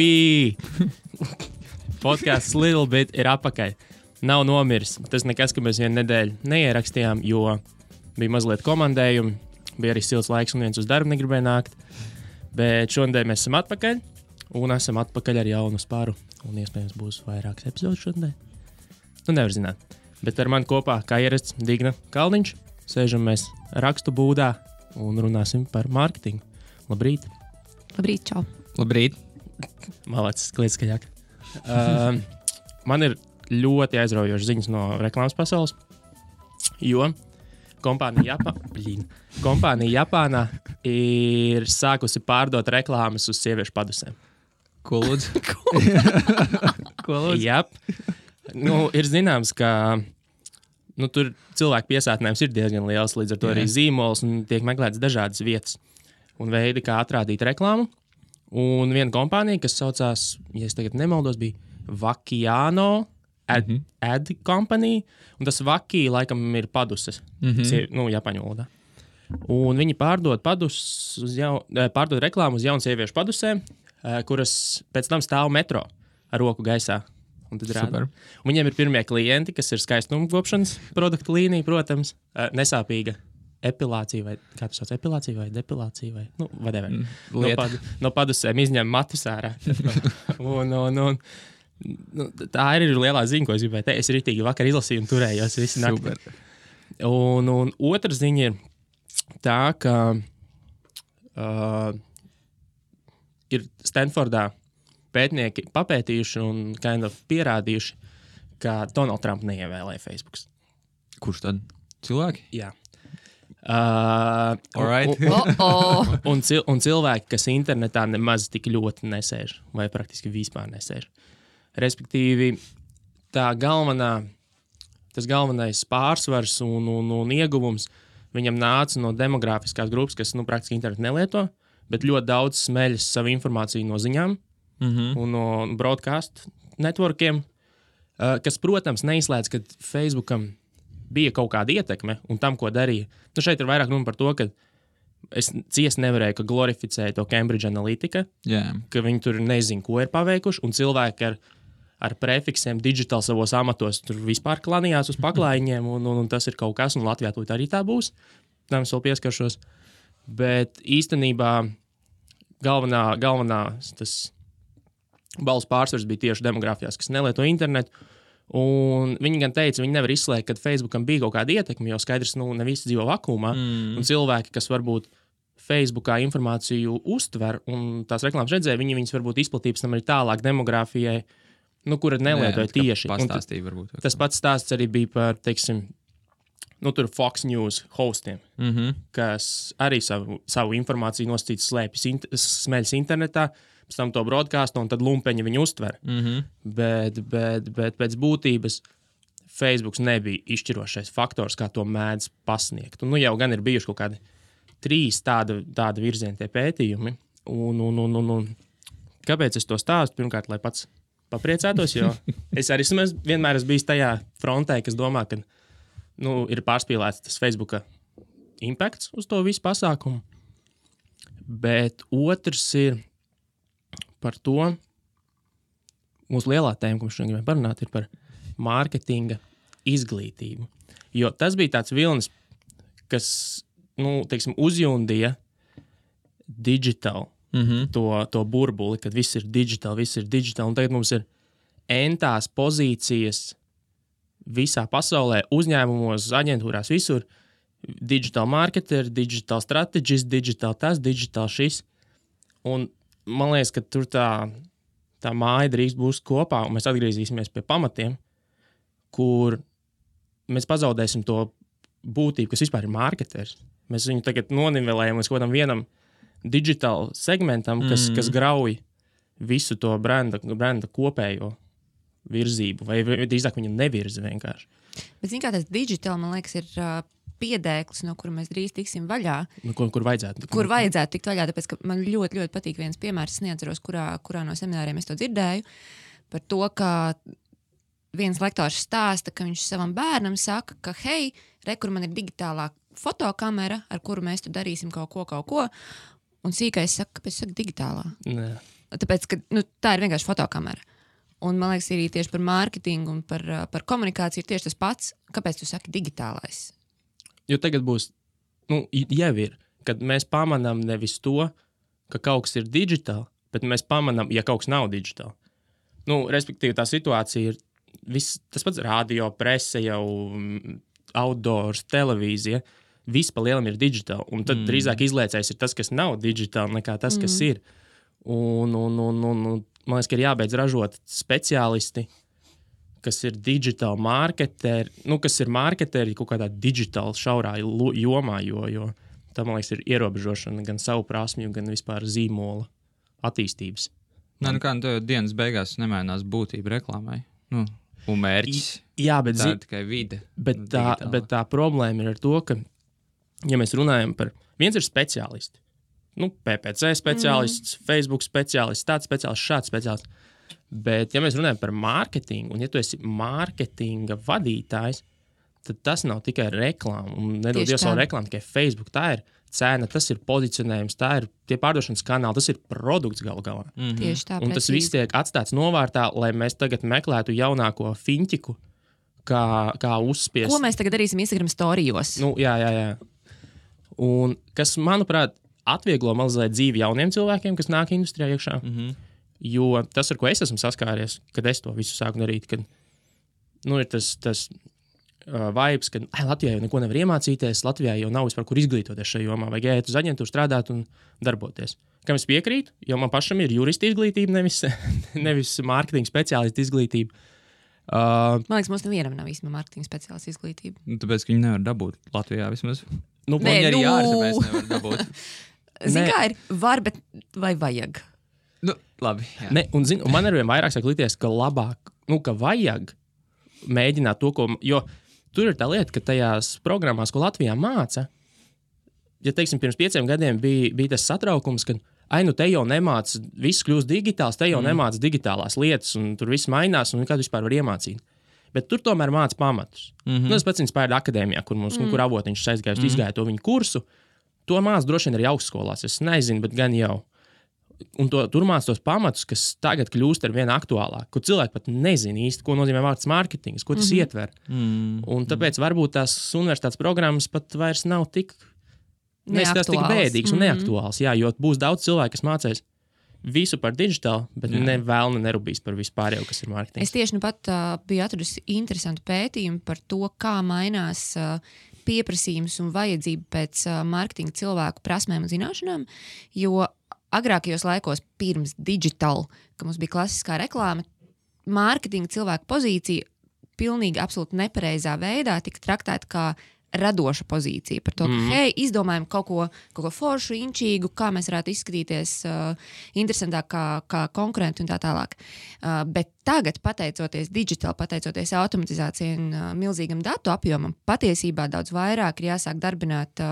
Ui! Podcasts Little Bit ir apakaļ. Nav nomiris. Tas nekas, ka mēs vienu nedēļu neierakstījām, jo bija mazliet komandējumi, bija arī silts laiks un viens uz darbu negribēja nākt. Bet šodien mēs esam atpakaļ un esam atpakaļ ar jaunu spāru. Un iespējams būs vairākas epizodes šodien. Nu, nevar zināt. Bet ar mani kopā, kā ierasts, Digna Kalniņš. Sēžam mēs rakstu būdā un runāsim par mārketingu. Labrīt! Labrīt, čau! Labrīt! Malacis, kliedz skaļāk. Man ir ļoti aizraujošas ziņas no reklāmas pasaules, jo kompānija Japānā ir sākusi pārdot reklāmas uz sieviešu padusēm. Ko lūdzu? Ko lūdzu? Jap. Nu, ir zināms, ka tur cilvēku piesātinājums ir diezgan liels, līdz ar to arī zīmols un tiek meklēts dažādas vietas un veidi, kā atrādīt reklāmu. Un viena kompānija, kas saucās, ja es tagad nemaldos, bija Vakiano Ad Company, un tas Vaki laikam ir paduses, Japāņu valodā. Un viņi pārdod reklāmu uz jaunu sieviešu padusēm, kuras pēc tam stāv metro ar roku gaisā. Un tad rāda. Un viņiem ir pirmie klienti, kas ir skaistuma kopšanas produktu līnija, protams, nesāpīga epilācija, vai kā tas sauc, epilācija vai depilācija, vai, whatever. No padusēm izņem matus ārā. un tā ir lielā ziņa, ko es gribēju teikt. Es ritīgi vakar izlasīju un turējos visu nakti. Un otra ziņa ir tā, ka ir Stanfordā pētnieki papētījuši un pierādījuši, ka Donald Trump neievēlēja Facebook. Kurš tad? Cilvēki? Jā. Un cilvēki, kas internetā nemaz tik ļoti nesēž, vai praktiski vispār nesēž. Respektīvi, tas galvenais pārsvars un ieguvums viņam nāca no demografiskās grupas, kas praktiski internetu nelieto, bet ļoti daudz smeļas savu informāciju no ziņām un no broadcast networkiem, kas, protams, neizslēdz, ka Facebookam bija kaut kāda ietekme un tam, ko darīja. Šeit ir vairāk runa par to, ka es ciest nevarēju, ka glorificēja to Cambridge Analytica, ka viņi tur nezin, ko ir paveikuši, un cilvēki ar prefiksiem digital savos amatos tur vispār klanījās uz paklājiņiem, un tas ir kaut kas, un Latvijā to arī tā būs. Tam es vēl pieskaršos. Bet īstenībā galvenā tas balss pārsvars bija tieši demogrāfijās, kas nelieto internetu. Un viņi gan teica, viņi nevar izslēgt, ka Facebookam bija kaut kāda ietekme, jo skaidrs, ne visi dzīvo vakumā. Un cilvēki, kas varbūt Facebookā informāciju uztver un tās reklāmas redzēja, viņas varbūt izplatības tam arī tālāk demogrāfijai, kura nelietoja tieši. Tas pats stāsts arī bija par, teiksim, tur Fox News hostiem, kas arī savu informāciju nosacīts smeļas internetā, pēc tam to broadcastu, un tad lumpeņi viņu uztver. Bet pēc būtības Facebooks nebija izšķirošais faktors, kā to mēdz pasniegt. Un jau gan ir bijuši kaut kādi 3 tāda virziena tie pētījumi. Un kāpēc es to stāstu? Pirmkārt, lai pats papriecētos, jo es arī vienmēr esmu bijis tajā frontē, kas domā, ka ir pārspīlēts tas Facebooka impakts uz to visu pasākumu. Bet otrs ir par to, mūsu lielā tēma, ko mēs šodien gribam parunāt, ir par mārketinga izglītību. Jo tas bija tāds vilnis, kas, teiksim, uzjundīja digital to burbuli, kad viss ir digital, un tagad mums ir entās pozīcijas visā pasaulē, uzņēmumos, aģentūrās, visur. Digital marketer, digital strategist, digital tas, digital šis. Un man liekas, ka tur tā māja drīz būs kopā, un mēs atgriezīsimies pie pamatiem, kur mēs pazaudēsim to būtību, kas vispār ir marketers. Mēs viņu tagad nonivelējam līdz kodam vienam digital segmentam, kas grauj visu to brenda kopējo virzību, vai drīzāk viņu nevirza vienkārši. Bet zin kā tas digital, man liekas, ir piedēklis, no kura mēs drīz tiksim vaļā. Kur vajadzētu? Kur vajadzētu tikt vaļā, tāpēc, ka man ļoti, ļoti patīk viens piemērs, es neatceros, kurā no semināriem es to dzirdēju, par to, ka viens lektors stāsta, ka viņš savam bērnam saka, ka hei, kur man ir digitālā fotokamera, ar kuru mēs tu darīsim kaut ko, Un sīkais saka, kāpēc saka digitālā? Nē. Tāpēc, ka tā ir vienkārši fotokamera. Un man liekas, arī tieši par mārketingu un par komunikāciju ir tieši tas pats. Kāpēc tu saki digitālais? Jo tagad būs, jau ir, kad mēs pamanām nevis to, ka kaut kas ir digitāli, bet mēs pamanām, ja kaut kas nav digitāli. Respektīvi, tā situācija ir tas pats radio, prese, jau outdoors, televīzija. Viss pa lielam ir digitāli. Un tad drīzāk izliecējs ir tas, kas nav digitāli, nekā tas, kas ir. Un man liekas, ka ir jābeidz ražot speciālisti, kas ir digitāli marketeri, kas ir marketeri kaut kādā digitāli šaurā jomā, jo tā, man liekas, ir ierobežošana gan savu prasmju, gan vispār zīmola attīstības. Dienas beigās nemainās būtība reklāmai. Un mērķis. Jā, bet tā ir tikai vide. Bet tā problēma ir ar to, ka, ja mēs runājam par, viens ir speciālisti. PPC speciālists, Facebook speciālists, tāds speciālists, šāds speciālists. Bet, ja mēs runājam par mārketingu, un ja tu esi mārketinga vadītājs, tad tas nav tikai reklāma. Un nedod Dievs savu reklāmu tikai Facebook. Tā ir cena, tas ir pozicionējums, tā ir tie pārdošanas kanāli, tas ir produkts galu galā. Tieši tā. Un tas viss tiek atstāts novārtā, lai mēs tagad meklētu jaunāko fintiku, kā uzspiest. Ko mēs tagad darīsim Instagram storijos? Jā. Un kas, manuprāt, atvieglo mazliet dzīvi jauniem cilvēkiem, kas nāk industrijā iekšā. Jo tas, ar ko es esmu saskāries, kad es to visu sāku darīt, kad ir tas vibes, ka Latvijā jau neko nevar iemācīties, Latvijā jau nav vispār kur izglītoties šajā jomā, vajag iet uz aģentūru strādāt un darboties. Kam es piekrītu, jo man pašam ir jurista izglītība, nevis mārketinga speciālista izglītība. Man liekas, mums nevienam nav īstenībā mārketinga speciālista izglītība. Tāpēc, ka viņi nevar dabūt Latvijā vismaz. Viņi arī ārzemēs nevar dabūt. Zini, kā ir var, bet vai vajag? Labi. Un man arvien vairāk sāk likties, ka labāk, ka vajag mēģināt to, ko, jo tur ir tā lieta, ka tajās programmās, ko Latvijā māca, ja, teiksim, pirms 5 gadiem bija tas satraukums, ka, te jau nemāca, viss kļūst digitāls, te jau nemāca digitālās lietas, un tur viss mainās, un kādu vispār var iemācīt. Bet tur tomēr māca pamatus. Tas pats Inspire akadēmijā, kur avotiņš aizgājis, izgāja to viņu kursu. To māca droši vien arī augstskolās. Es nezinu, bet gan jau. Un tur māca tos pamatus, kas tagad kļūst ar vien aktuālāk, kur cilvēki pat nezina īsti, ko nozīmē vārds mārketings, ko tas ietver. Un tāpēc varbūt tās universitātes programmas pat vairs nav tik bēdīgas un neaktuāls. Jā, jo būs daudz cilvēku, kas mācīs visu par digitālu, bet nerūpīs par vispārējo, kas ir mārketings. Es tieši pat biju atradusi interesantu pētījumu par to, kā mainās pieprasījums un vajadzība pēc mārketinga cilvēku prasmēm un zināšanām, jo agrākajos laikos pirms digital, ka mums bija klasiskā reklāma, mārketinga cilvēku pozīcija pilnīgi absolūti nepareizā veidā tika traktēta kā radoša pozīcija par to, ka, izdomājam kaut ko foršu, inčīgu, kā mēs varētu izskatīties interesantāk kā konkurenti un tā tālāk. Bet tagad, pateicoties digital, pateicoties automatizācijai un milzīgam datu apjomam, patiesībā daudz vairāk ir jāsāk darbināt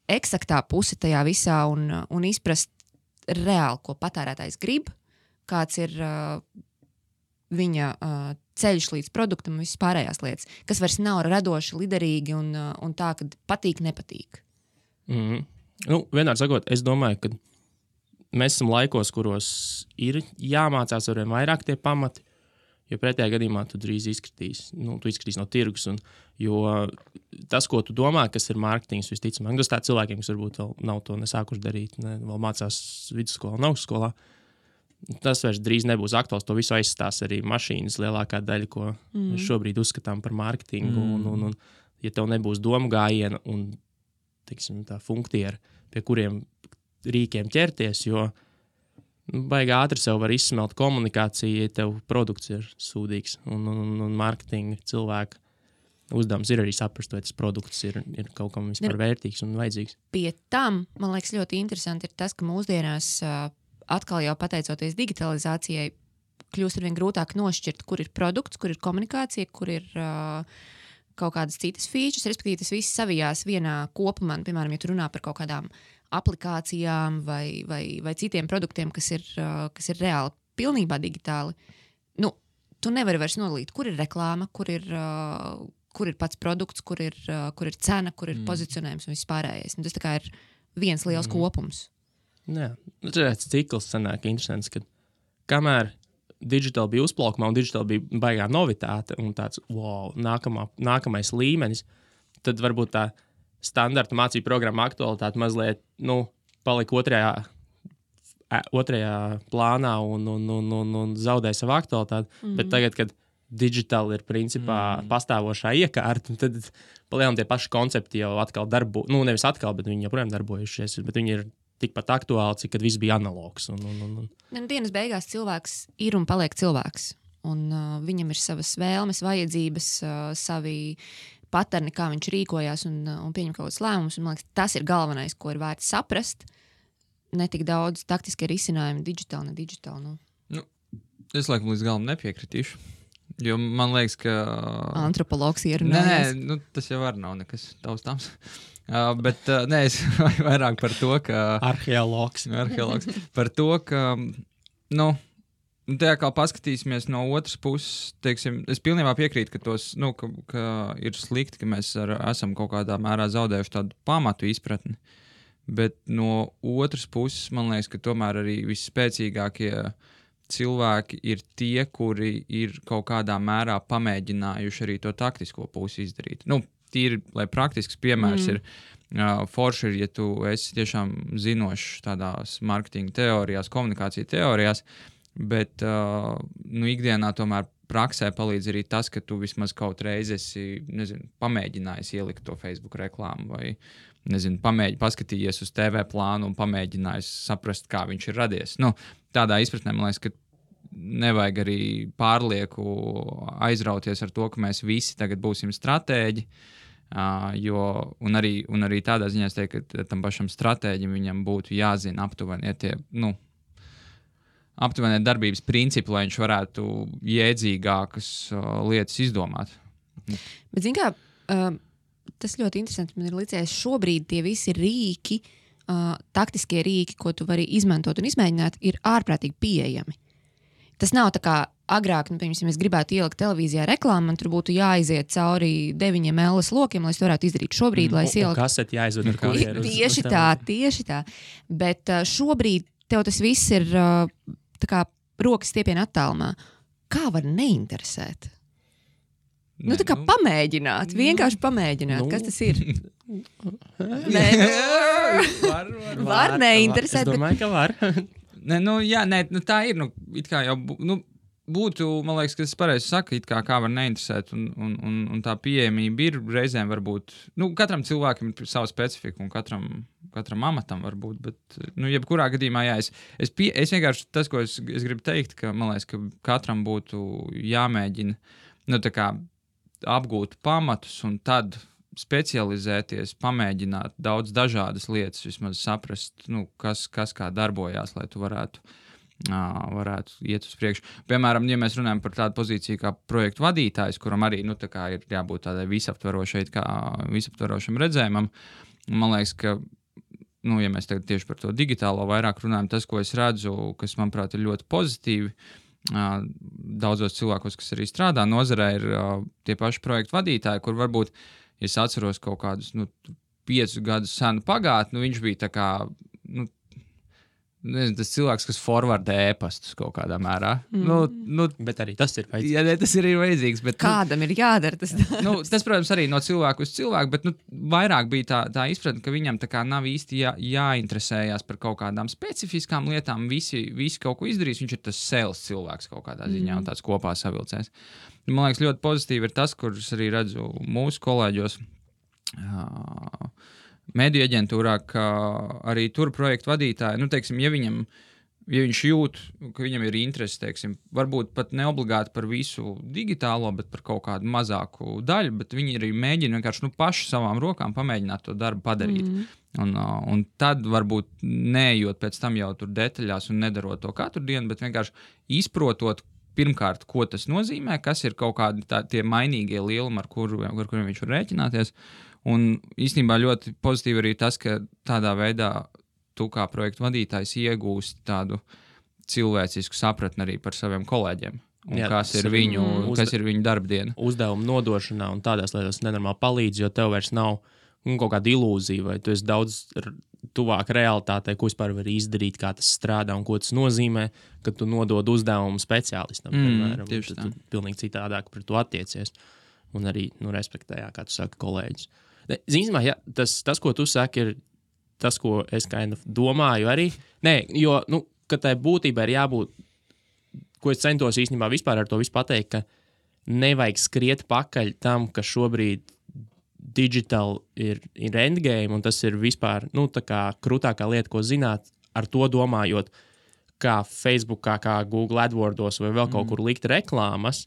eksaktā puse tajā visā un izprast reāli, ko patērētājs grib, kāds ir viņa ceļš līdz produktam un visas pārējās lietas, kas vairs nav radoši, liderīgi un tā, ka patīk, nepatīk. Vienmēr sakot, es domāju, ka mēs esam laikos, kuros ir jāmācās arvien vairāk tie pamati, jo pretējā gadījumā tu drīz izskatīs no tirgus. Jo tas, ko tu domā, kas ir mārketings, visticamāk, tas tā cilvēkiem, kas varbūt vēl nav to nesākuši darīt, vēl mācās vidusskolā un augstskolā, tas vairs drīz nebūs aktuāls. To visu aizstās arī mašīnas lielākā daļa, ko mēs šobrīd uzskatām par mārketingu. Un, ja tev nebūs domu gājiena un, teiksim, tā funktiera, pie kuriem rīkiem ķerties, jo baigi ātri sev var izsmelt komunikāciju, ja tev produkts ir sūdīgs. Un mārketinga cilvēka uzdevums ir arī saprast, vai tas produkts ir kaut kam vispār vērtīgs un vajadzīgs. Pie tam, man liekas, ļoti interesanti ir tas, ka mūsdienās atkal jau pateicoties digitalizācijai, kļūst arvien grūtāk nošķirt, kur ir produkts, kur ir komunikācija, kur ir kaut kādas citas features, respektīvi tas viss savijās vienā kopumā. Piemēram, ja tu runā par kaut kādām aplikācijām vai citiem produktiem, kas ir reāli pilnībā digitāli, tu nevari vairs nodalīt, kur ir reklāma, kur ir pats produkts, kur ir cena, kur ir pozicionējums un viss pārējais. Tas tā kā ir viens liels kopums. Jā, tāds cikls sanāk interesants, ka kamēr digitāli bija uzplaukumā un digitāli bija baigā novitāte un tāds, wow, nākamais līmenis, tad varbūt tā standarta mācību programma aktualitāte mazliet, palika otrajā plānā un zaudēja savu aktualitāti. Bet tagad, kad digitāli ir principā pastāvošā iekārta, tad palielam tie paši koncepti jau atkal nevis atkal, bet viņi joprojām darbojušies, bet viņi ir tikpat aktuāli, cik kad viss bija analogs. Dienas beigās cilvēks ir un paliek cilvēks. Un viņam ir savas vēlmes, vajadzības, savi paterni, kā viņš rīkojās un pieņem kaut kādus lēmumus. Man liekas, tas ir galvenais, ko ir vērts saprast. Ne tik daudz taktiskie risinājumi, digitāli, ne digitāli. Es laikam līdz galam nepiekritīšu. Jo man liekas, ka... Antropologs ierunājas. Nē, tas jau var nav nekas taustāms. Bet es vairāk par to, ka... Arheologs. Par to, ka, tā kā paskatīsimies no otras puses, teiksim, es pilnībā piekrītu, ka tos, ka ir slikti, ka mēs esam kaut kādā mērā zaudējuši tādu pamatu izpratni. Bet no otras puses, man liekas, ka tomēr arī visspēcīgākie cilvēki ir tie, kuri ir kaut kādā mērā pamēģinājuši arī to taktisko pusi izdarīt. Tīri, lai praktisks piemērs ir, forši ir, ja tu esi tiešām zinošs tādās marketinga teorijās, komunikācija teorijās, bet ikdienā tomēr praksē palīdz arī tas, ka tu vismaz kaut reizi esi, pamēģinājis ielikt to Facebook reklāmu vai, paskatījies uz TV plānu un pamēģinājis saprast, kā viņš ir radies. Tādā izpratnē, man liekas, ka nevajag arī pārlieku aizrauties ar to, ka mēs visi tagad būsim stratēģi, un arī tādā ziņā es teiktu, ka tam pašam stratēģim viņam būtu jāzina aptuveni aptuveni darbības principi, lai viņš varētu jēdzīgākas lietas izdomāt. Bet, zin kā, tas ļoti interesanti. Man ir licies, šobrīd tie visi rīki, taktiskie rīki, ko tu vari izmantot un izmēģināt, ir ārprātīgi pieejami. Tas nav tā kā agrāk, piemēram, es gribētu ielikt televīzijā reklāmu, man tur būtu jāiziet cauri 9 LS lokiem, lai es to varētu izdarīt šobrīd, lai es ieliktu. Kaseti jāizved ar kurjeru. Tieši tā. Bet šobrīd tev tas viss ir tā kā rokas stiepiena attālumā. Kā var neinteresēt? Tā kā pamēģināt, vienkārši pamēģināt, kas tas ir. Var neinteresēt. Es domāju, ka var. Tā ir, it kā jau, būtu, man liekas, ka tas pareizi saka, it kā var neinteresēt, un tā pieejamība ir reizēm varbūt, katram cilvēkam ir sava specifika, un katram amatam varbūt, bet, jebkurā gadījumā, es vienkārši, tas, ko es gribu teikt, ka, man liekas, ka katram būtu jāmēģina, tā kā apgūt pamatus un tad specializēties, pamēģināt daudz dažādas lietas, vismaz saprast, kas kā darbojās, lai tu varētu iet uz priekšu. Piemēram, ja mēs runājam par tādu pozīciju kā projektu vadītājs, kuram arī ir jābūt tādai visaptverošam redzējumam, man liekas, ka, ja mēs tagad tieši par to digitālo vairāk runājam, tas, ko es redzu, kas, manuprāt, ir ļoti pozitīvi, daudzos cilvēkos, kas arī strādā nozarē, ir tie paši projektu vadītāji, kur varbūt, ja es atceros kaut kādus 5 gadus senu pagātni, viņš bija tā kā, tas cilvēks, kas forwardē e-pastus kaut kādā mērā. Bet arī tas ir vajadzīgs. Jā, tas ir vajadzīgs. Bet, kādam ir jādara tas? Tas, protams, arī no cilvēku uz cilvēku, bet vairāk bija tā izpratne, ka viņam tā kā nav īsti jāinteresējās par kaut kādām specifiskām lietām. Visi kaut ko izdarīs, viņš ir tas sales cilvēks kaut kādā ziņā un tāds kopā savilcēs. Man liekas, ļoti pozitīvi ir tas, kurus arī redzu mūsu kolēģos, mediju aģentūrā, ka arī tur projektu vadītāji, teiksim, ja viņš jūt, ka viņam ir interesi, teiksim, varbūt pat neobligāti par visu digitālo, bet par kaut kādu mazāku daļu, bet viņi arī mēģina vienkārši paši savām rokām pamēģināt to darbu padarīt. Un tad varbūt neejot pēc tam jau tur detaļās un nedarot to katru dienu, bet vienkārši izprotot pirmkārt, ko tas nozīmē, kas ir kaut kādi tie mainīgie lielumi, ar kuriem viņš var rēķināties. Un īstenībā ļoti pozitīvi arī tas, ka tādā veidā tu kā projektu vadītājs iegūst tādu cilvēcisku sapratni arī par saviem kolēģiem. Un kas ir viņu darbdiena. Uzdevumu nodošanā un tādās lietās nenormāli palīdz, jo tev vairs nav kaut kāda ilūzija, vai tu esi daudz tuvāk realitātei, ko vispār var izdarīt, kā tas strādā un ko tas nozīmē, kad tu nodod uzdevumu speciālistam. Piemēram, tu pilnīgi citādāk par to attiecies. Un arī respektējā, kā tu saki, kolēģis. Zinām, ja, tas, ko tu saki, ir tas, ko es domāju arī. Nē, jo, ka tai būtībai ir jābūt, ko es centos īstenībā vispār ar to visu pateikt, ka nevajag skriet pakaļ tam, ka šobrīd digital ir endgame, un tas ir vispār tā kā krūtākā lieta, ko zināt, ar to domājot, kā Facebookā, kā Google AdWordos vai vēl kaut kur likt reklāmas,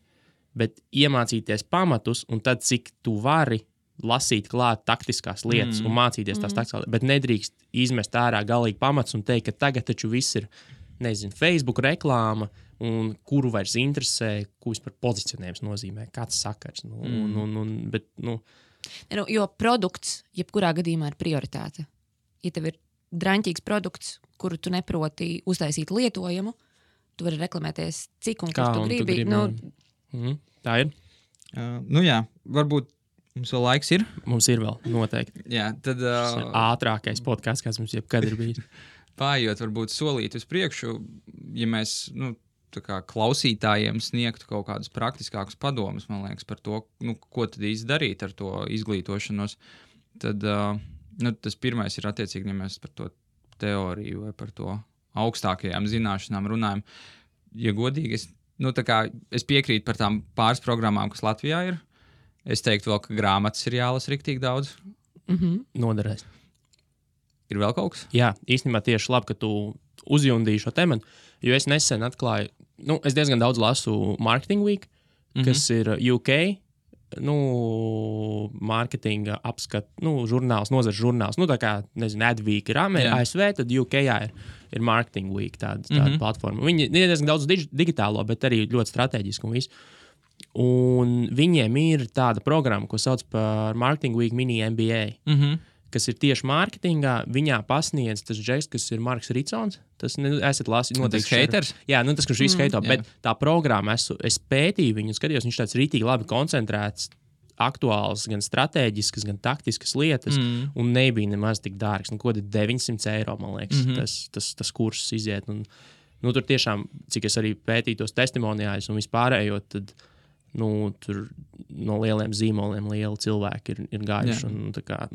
bet iemācīties pamatus, un tad cik tu vari lasīt klāt taktiskās lietas un mācīties tās taktiskās lietas, bet nedrīkst izmest ārā galīgi pamats un teikt, ka tagad taču viss ir, Facebook reklāma, un kuru vairs interesē, ko vispār pozicionējums nozīmē, kāds sakars. Jo produkts, jebkurā gadījumā, ir prioritāte. Ja tev ir draņķīgs produkts, kuru tu neproti uztaisīt lietojumu, tu vari reklamēties cik un kur tu gribi. Tā ir. Jā, varbūt mums vēl laiks ir. Mums ir vēl, noteikti. Jā, tad... ātrākais podcasts, kas mums jebkad ir bijis. Pājot, varbūt solīt uz priekšu, ja mēs... tā kā klausītājiem sniegtu kaut kādus praktiskākus padomus, man liekas, par to, ko tad īsti darīt ar to izglītošanos, tad tas pirmais ir attiecīgi, ja mēs par to teoriju vai par to augstākajām zināšanām runājam. Ja godīgi, es piekrītu par tām pāris programmām, kas Latvijā ir. Es teiktu vēl, ka grāmatas ir jālasa riktīgi daudz. Noderēs. Ir vēl kaut kas? Jā, īstenībā tieši labi, ka tu uzjundīji šo tematu, jo es nesen atklāju, es diezgan daudz lasu Marketing Week, kas ir UK, mārketinga apskat, žurnāls, nozares žurnāls, tā kā, Adweek ir ASV, tad UK ir Marketing Week, tāda platforma. Viņi ir diezgan daudz digitālo, bet arī ļoti strateģiski un visu. Un viņiem ir tāda programma, ko sauc par Marketing Week Mini MBA. Kas ir tieši mārketingā, viņā pasniedz tas džeks, kas ir Marks Ricons. Tas esat lasījis noteikti. Tas haters? Jā, tas, kurš visu heito, bet tā programma, es pētīju viņu, skatījos, viņš tāds rītīgi labi koncentrēts, aktuāls, gan strateģiskas, gan taktiskas lietas, un nebija nemaz tik dārgs. Ko tad 900 eiro, man liekas, tas kurss iziet. Un, tur tiešām, cik es arī pētīju tos testimonijājus un vispārējo, tad tur no lieliem zīmoliem lieli cilvēki ir gājuši.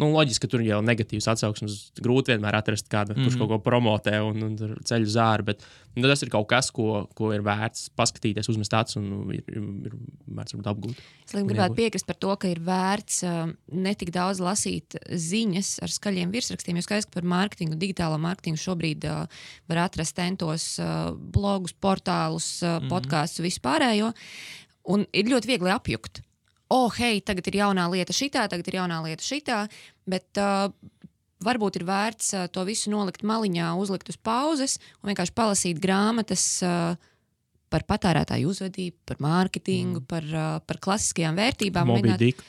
Loģiski, ka tur jau negatīvs atsauksmes. Grūti vienmēr atrast kādu, kurš kaut ko promotē un ceļ uz āru, bet tas ir kaut kas, ko ir vērts paskatīties, uzmest acis un ir vērts apgūt. Es gribētu piekrist par to, ka ir vērts netik daudz lasīt ziņas ar skaļiem virsrakstiem, jo skaidrs, ka par mārketingu, digitālo mārketingu šobrīd var atrast tentos blogus, portālus, podkastus, vispārējo. Un ir ļoti viegli apjukt. Hei, tagad ir jaunā lieta šitā, bet varbūt ir vērts to visu nolikt maliņā, uzlikt uz pauzes un vienkārši palasīt grāmatas par patērētāju uzvedību, par mārketingu, par klasiskajām vērtībām. Moby Dick.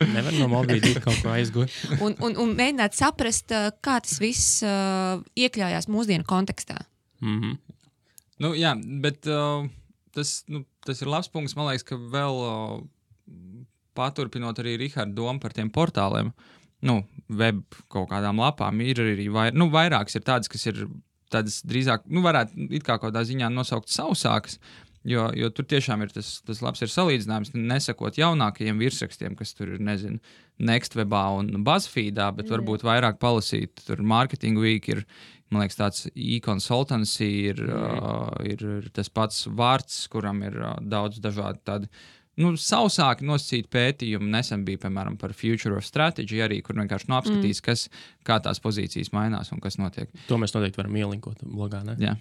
Nevar no Moby Dick kaut ko aizgūt. un mēģināt saprast, kā tas viss iekļājās mūsdienu kontekstā. Jā, bet... Tas ir labs punkts. Man liekas, ka vēl paturpinot arī Riharda domu par tiem portāliem, web kaut kādām lapām, ir arī vairākas ir tādas, kas ir tādas drīzāk, varētu it kā kaut kādā ziņā nosaukt sausākas, jo tur tiešām ir tas labs ir salīdzinājums, nesakot jaunākajiem virsrakstiem, kas tur ir, Nextwebā un BuzzFeedā, bet varbūt vairāk palasīt, tur Marketing Week ir, man liekas, tāds e-consultancy ir tas pats vārds, kuram ir daudz dažādi tādi, sausāki nosacīti pētījumi. Nesen bija, piemēram, par Future of Strategy arī, kur vienkārši apskatīs, kā tās pozīcijas mainās un kas notiek. To mēs noteikti varam ielinkot blogā, ne? Jā.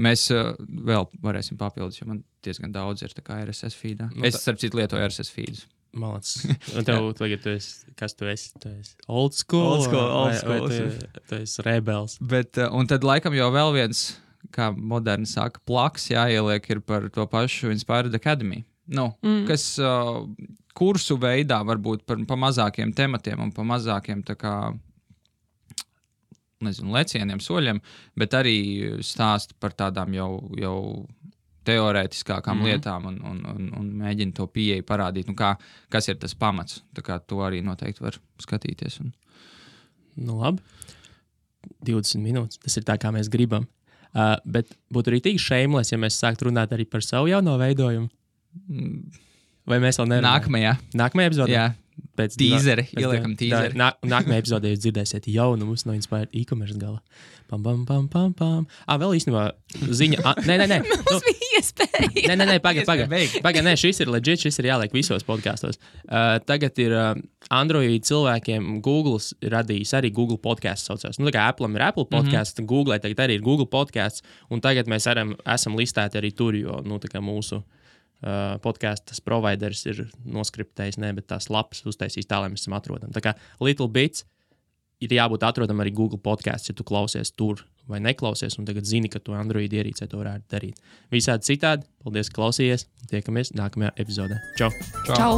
Mēs vēl varēsim papildus, jo man diezgan daudz ir tā kā RSS feedā. Es, starp citu, lietoju RSS feedus. Malacis. Un tev tagad tu esi old school. Tu esi rebels. Bet, un tad laikam jau vēl viens, kā moderni saka, plaks jāieliek ir par to pašu Inspired Academy. Kas kursu veidā varbūt pa mazākiem tematiem un pa mazākiem tā kā, lecieniem, soļiem, bet arī stāst par tādām jau teorētiskākām lietām un mēģina to pieeju parādīt. Kas ir tas pamats? Tā kā to arī noteikti var skatīties. Nu labi. 20 minūtes. Tas ir tā, kā mēs gribam. Bet būtu arī tik shameless, ja mēs sāktu runāt arī par savu jauno veidojumu. Vai mēs vēl nerunājam? Nākamajā epizodē? Jā. Tīzeri. Ieliekam tīzeri. Nākamajā epizodē jūs dzirdēsiet jaunumus no Inspired e-commerce gala. Pam, pam, pam, pam, pam. Vēl īstenībā ziņa... Nē. Mums bija iespēja. Nē, pagaid, šis ir legit, šis ir jāliek visos podkastos. Tagad ir Android cilvēkiem Google radījis arī Google podcasts saucās. Tā kā Apple'am ir Apple podcasts, Google tagad arī ir Google podcasts, un tagad mēs esam listēti arī tur, jo, tā kā mūsu podkastas providers ir noskriptējis, bet tās lapas uztaisīs tā, lai mēs esam atrodami. Tā kā Little Bits ir jābūt atrodam arī Google podcasts, ja tu klausies tur vai neklausies, un tagad zini, ka tu Android ierīcē to varētu darīt. Visādi citādi, paldies, ka klausījies, tiekamies nākamajā epizodē. Čau! Čau!